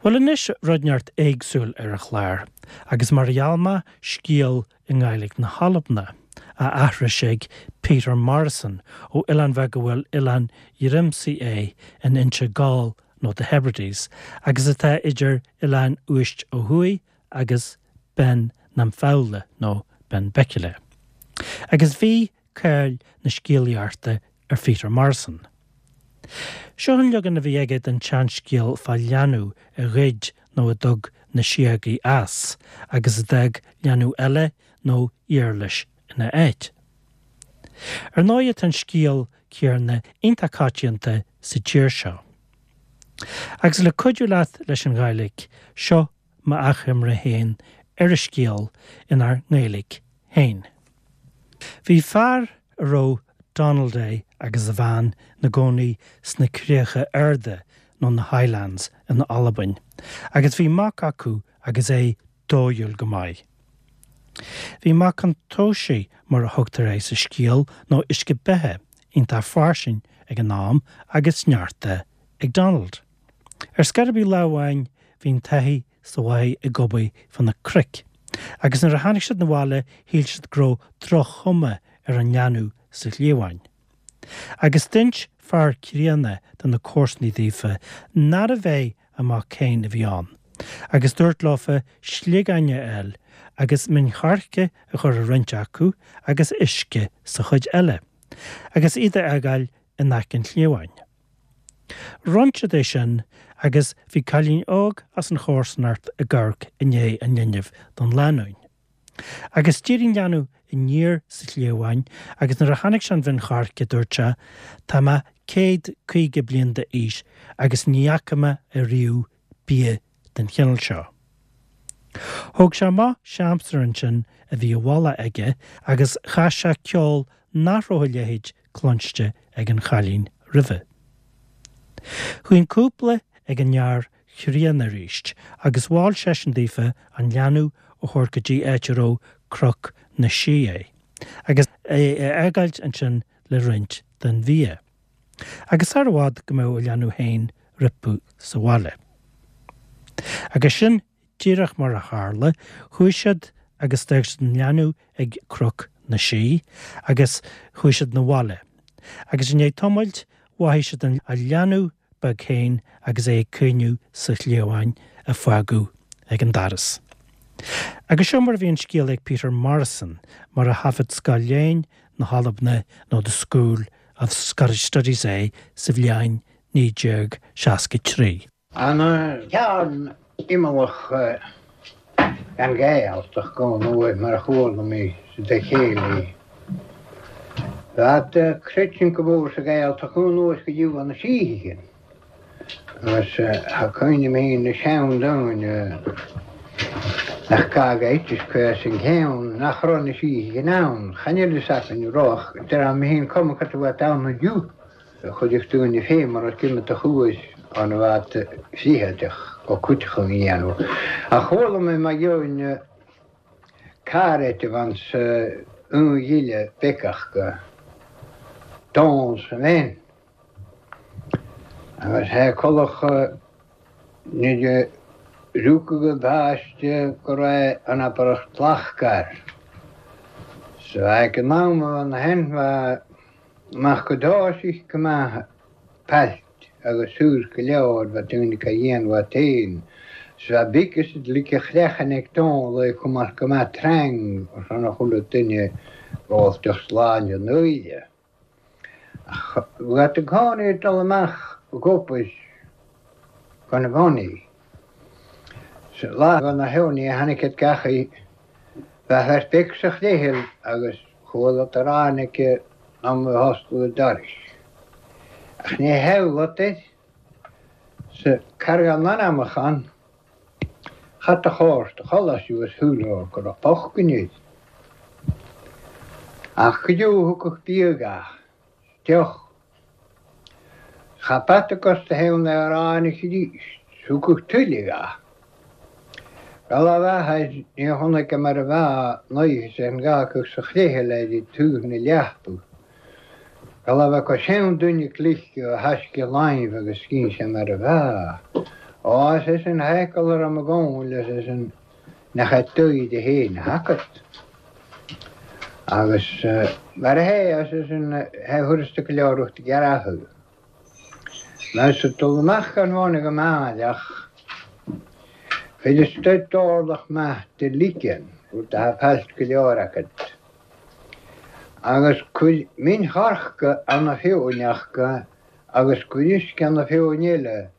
Bhuel anois rud inteacht éagsúil ar an chlár, agus mar a gheall mé, scéal i nGàidhlig na hAlbna, á aithris ag Peter Morrison ó oileán bheag a bhfuil Oileán Ghrimsay é in Inse Gall nó The Hebrides, agus atá idir Oileán Uist ó thuaidh agus Beinn nam Fobhla nó Benbecula. Agus bhí cáil na scéalaíochta ar Pheter Morrison. Seo an leagan a bhí aige den tseanscéal fá leanbh a ghoid nó a dtug na síogaí as agus a d'fhág leanbh eile nó iarlais ina áit. Ar ndóighe tá an scéal céarna iontach coitianta sa tír seo. Agus le cuidiú leat leis an Ghàidhlig, seo m'achoimre féin ar an scéal inár nGaeilge féin. Bhí fear a raibh Donald é agus a bhean 'na gcónaí sna Críocha Arda nó na Highlands in Albain agus bhí mac acu agus é dóighiúil go maith. Bhí mac an tóisigh mar a thugtar é sa scéal nó uisce beatha iontach fairsing ag an am agus sneachta ag Donald. Ar scor ar bith lá amháin bhí an taithí sa bhaile ag obair fá na cnoic, agus nuair a tháinig siad 'na bhaile shíl siad go raibh droch-chuma ar an leanbh sa chliabhán. Agus d'inis fear críonna de na comharsanaí daofa nárbh é a mac féin a bhí ann, agus dúirt leofa sliogáin a fháil agus min choirce a chur i roinnt acu agus uisce sa chuid eile, agus iad a fhágáil in aice an chliabháin. Rinn siad é sin agus bhí cailín óg as an chomharsanacht ag amharc i ndiaidh an linbh don lánúin. Agus d'éirigh an leanbh aniar sa chliabhán agus nuair a chonaic sé an mhin choirce dúirt sé, Tá mé 150 bliain d'aois agus ní fhaca mé ariamh bia den chineál seo. Thóg sé amach siamsaire ansin a bhí i bhfolach aige agus chas sé ceol nach raibh a leithéid cluinste ag an chailín roimhe. Chuaigh an cúpla ag an fhear chríonna arís agus mhol seisean daofa an leanbh a thabhairt go dtí áit a raibh Cnoc na Sí é agus é a fhágáilt ansin le roinnt den bhia. Agus sar i bhfad go mbeadh a leanbh féin roipiú sa bhaile. Agus sin díreach mar a tharla, chuaigh siad agus d'fhág siad an leanbh ag Cnoc na Sí agus chuaigh siad 'na bhaile. Agus i ndiaidh tamaill mhothaigh siad a leanbh beag féin agus é ag caoineadh sa chliabhán a fágadh ag an doras. Agus seo mar a bhí an scéal ag Peter Morrison, mar a thaifead Sgoil Léinn na hAlbna nó The School of Scottish Studies é sa bhliain 1963. An ceann imeallach den Ghaeltacht go n-uaidh mar a chuala mé sa chéilí. Bheadh creidiúint go mór sa Ghaeltacht go anuas go dtí na síthigh. Agus tá cuimhne agam féin na seandaoine nach gá go eitis cuir an ceann nach raibh na síthigh in ann. Chan fhuil fhios againn an raibh ach deir mé féin cuma cad a bheadh ann inniu. Chuideodh daoine féin mar is cuma do chuais an bhfad fritheadach go cuiteach a dhéanamh. Ach chuala mé mar gheobhainn carr eiteamh ansa un ghile beiceach go dán sa bheinn. Agus thé colach nuair a rugadh an páiste go raibh an abairt lascair. So ag an am a bheith na hainmhithe amach go dtáisig go maith pailt agus suas go leor bheith daoine ca dhéanamh at féin. So bheith big is like a chleachan ag dán le cumas go maith trang ar son a chuile duine rollteach sláinte an uaire. Ach bheadh i gcónaí ag dul amach ag obair gan a bhonnaí. Sa lá go na heornaí a tháinig iad gach oíche, bheadh fear beag sa chléicheal agus chualadar ráinig am a hoscladh an dorais. Ach ní theaghlach air sa carraigeán anamach ann. Chat a chóir do chodladh suas shúil go raibh bocht air. Ach go deo thugadh bia gach deoch. Cha bata gus do thaobh na ráinig arís. Thugadh tuilleadh gach. Go raibh a athair ní chonaic mar a bheadh an oíche sin gach sa chléithe le túth na leathbadh. Go raibh acu sean duine cliste a thaisce láimh agus scín sé mar a bheadh. Á, is é sin thaicil a raibh mo ghabháil, is é sin nach é d'aghaidh féin a thacat. Agus mar a hé, is é sin hé thuras go leor ucht gearradh. Mar sa dul amach gan bháine go maith ach chuir stoit d'orlach maith de lichen, rud atá failt go leor agat. Agus cuir min choirce ann a fiúineachta agus cuir uisce ann a fiúin eile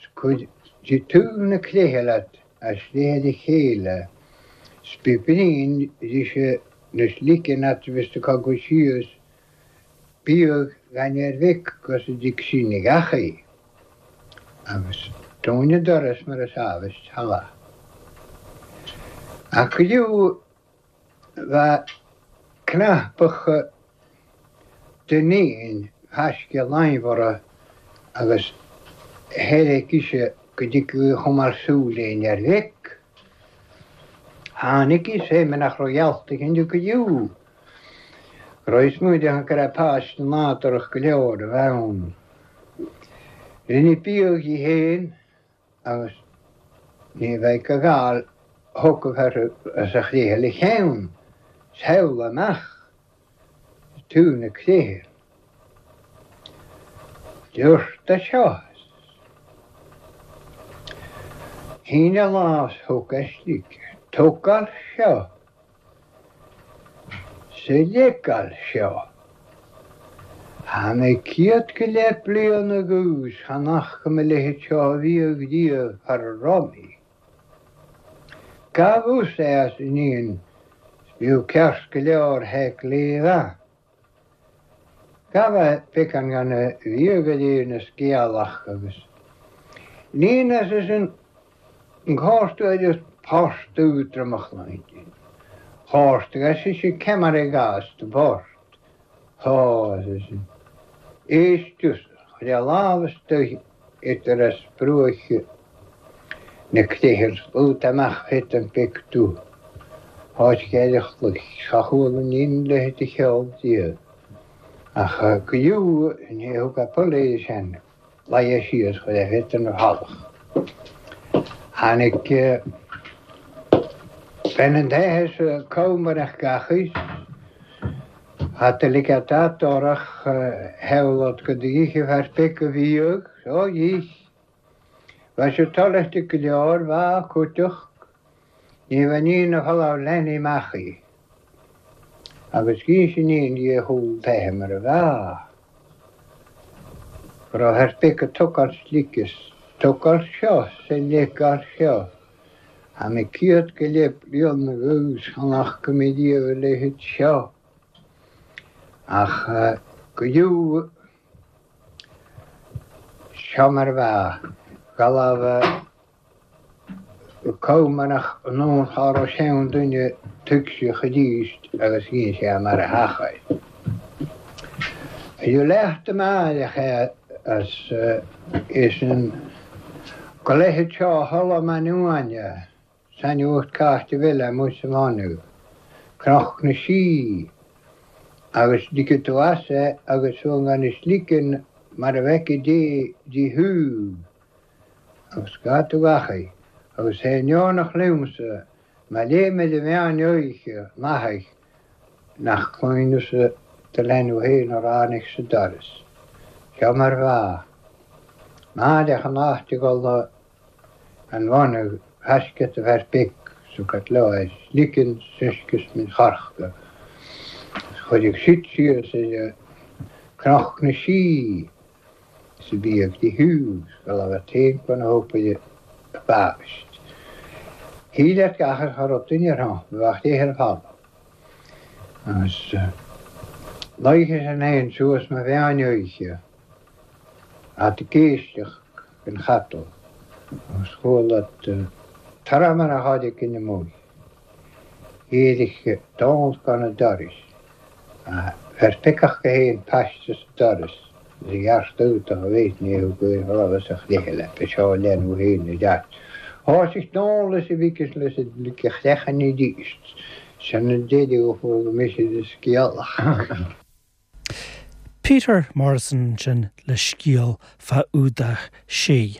's cuir de taobh na cléithe leat as léithe a chéile 's bí brín rise na sliceann at bhis do cogadh síos bíodh gan ar mhic gus a dtig sin ag eachaí agus dúin an doras mar is ábhais thala. Ach go dtí Bheadh cnapach de thaisce laimhora agus theilg ise go dtiocfadh a chumar súil ar mhic. Tháinig is é mar nach raibh geallta aici inniu go deo. Go raibh smaoineamh go raibh páiste nádúrach go leor a bheith ann. Rinne biadh di féin agus ní bheidh a ghabháil thiocfadh uirthi as a chléithe le cheann samhla amach taobh na cléithe. Dúirt a seo. Shín a lámh 's thug a slig. Tógáil seo. Sa leiceáil seo. Tá mé céad go leith bliain agus chan fhaca mo leithéid seo a bhíodh riamh thar a raibh mé. Gabh us é as iníon 's bíodh ceart go leor théic léamh. Gabh a beacán gan a bhíodh go léir na sciathlach agus níon as is an cárta agus port údramach linn. Cárta as is an ceamara i gcás do phort. Tá as is an éist tusa, chuir a lámh istoíche idir as bruacha na cléithe slúta amach thit an pictiúr. Áit cheithre chloich, cha chuala níon leithéid de cheol riamh. Ach go deo ní thug a polaoid sin laighe síos chuir a thit ina bhealach. Tháinig bean an teitheadh sa comhmarach gach aois. Hata ligeadh datorach theaghlach go dtí fear beag a bhíodh so dhís. Bheadh sé toilithe go leor, bheadh cúiteach, ní bheadh níon a folamh leanaí amach í. Agus dhís iníon di a chúl teiche mar a bheadh. Go raibh ar bith go tugáil slic is tugáil seo 's a leigeáil seo. Tá mé céad go leith bliain agus chan fhaca mé riamh a leithéid seo. Ach go deo Seo mar a bheadh galamh comhmanach anonn cha raibh sean duine tuigseach arís agus dhein sé mar a theachair. Bhí leath de m'airgeadh é as é sin go leithéid seo a tholladh m'ainneoin. Sainiúlacht cairte bheile amuigh sa bhfáinne, Cnoc na Sí, agus ligfidh tú as é agus tú gan is ligean mar a bhfeicfidh Dé di thú agus gá tú gach é, agus é neonach liomsa má léim ar an mheán oíche nathair nach cluineas do leanbh féin a ráinig sa doras. Seo mar bheadh. Mairfeadh an áit ag dul An bhunadh thaisce do bheart beic sa gcaitleáir sliceann seisceas min charachta is chuirfeadh siad síos ar Cnoc na Sí sa bhíodh de Hughes go raibh a t-aon na hópaire a b'aist. Shíl at gach ar chur duine ar shon bheadh léith ar fad agus luigh an éan suas mo mheán oíche. At ag éisteacht den chatal agus chuala toradh mar a tháinig ina mbuí. Éirigh dán gan an doras. Bheir piocach go haon paiste sa doras is a ghearrtú do mhéid ní thug aon rud as a chluiche le ba seo leanbh féin a deart. Thosaigh dán leis a mhic is leis a dlig a chreachan arís. Sin an deireadh a chuala mise de scéalach. Peter Morrison ansin le scéal fá Fhuadach Sí.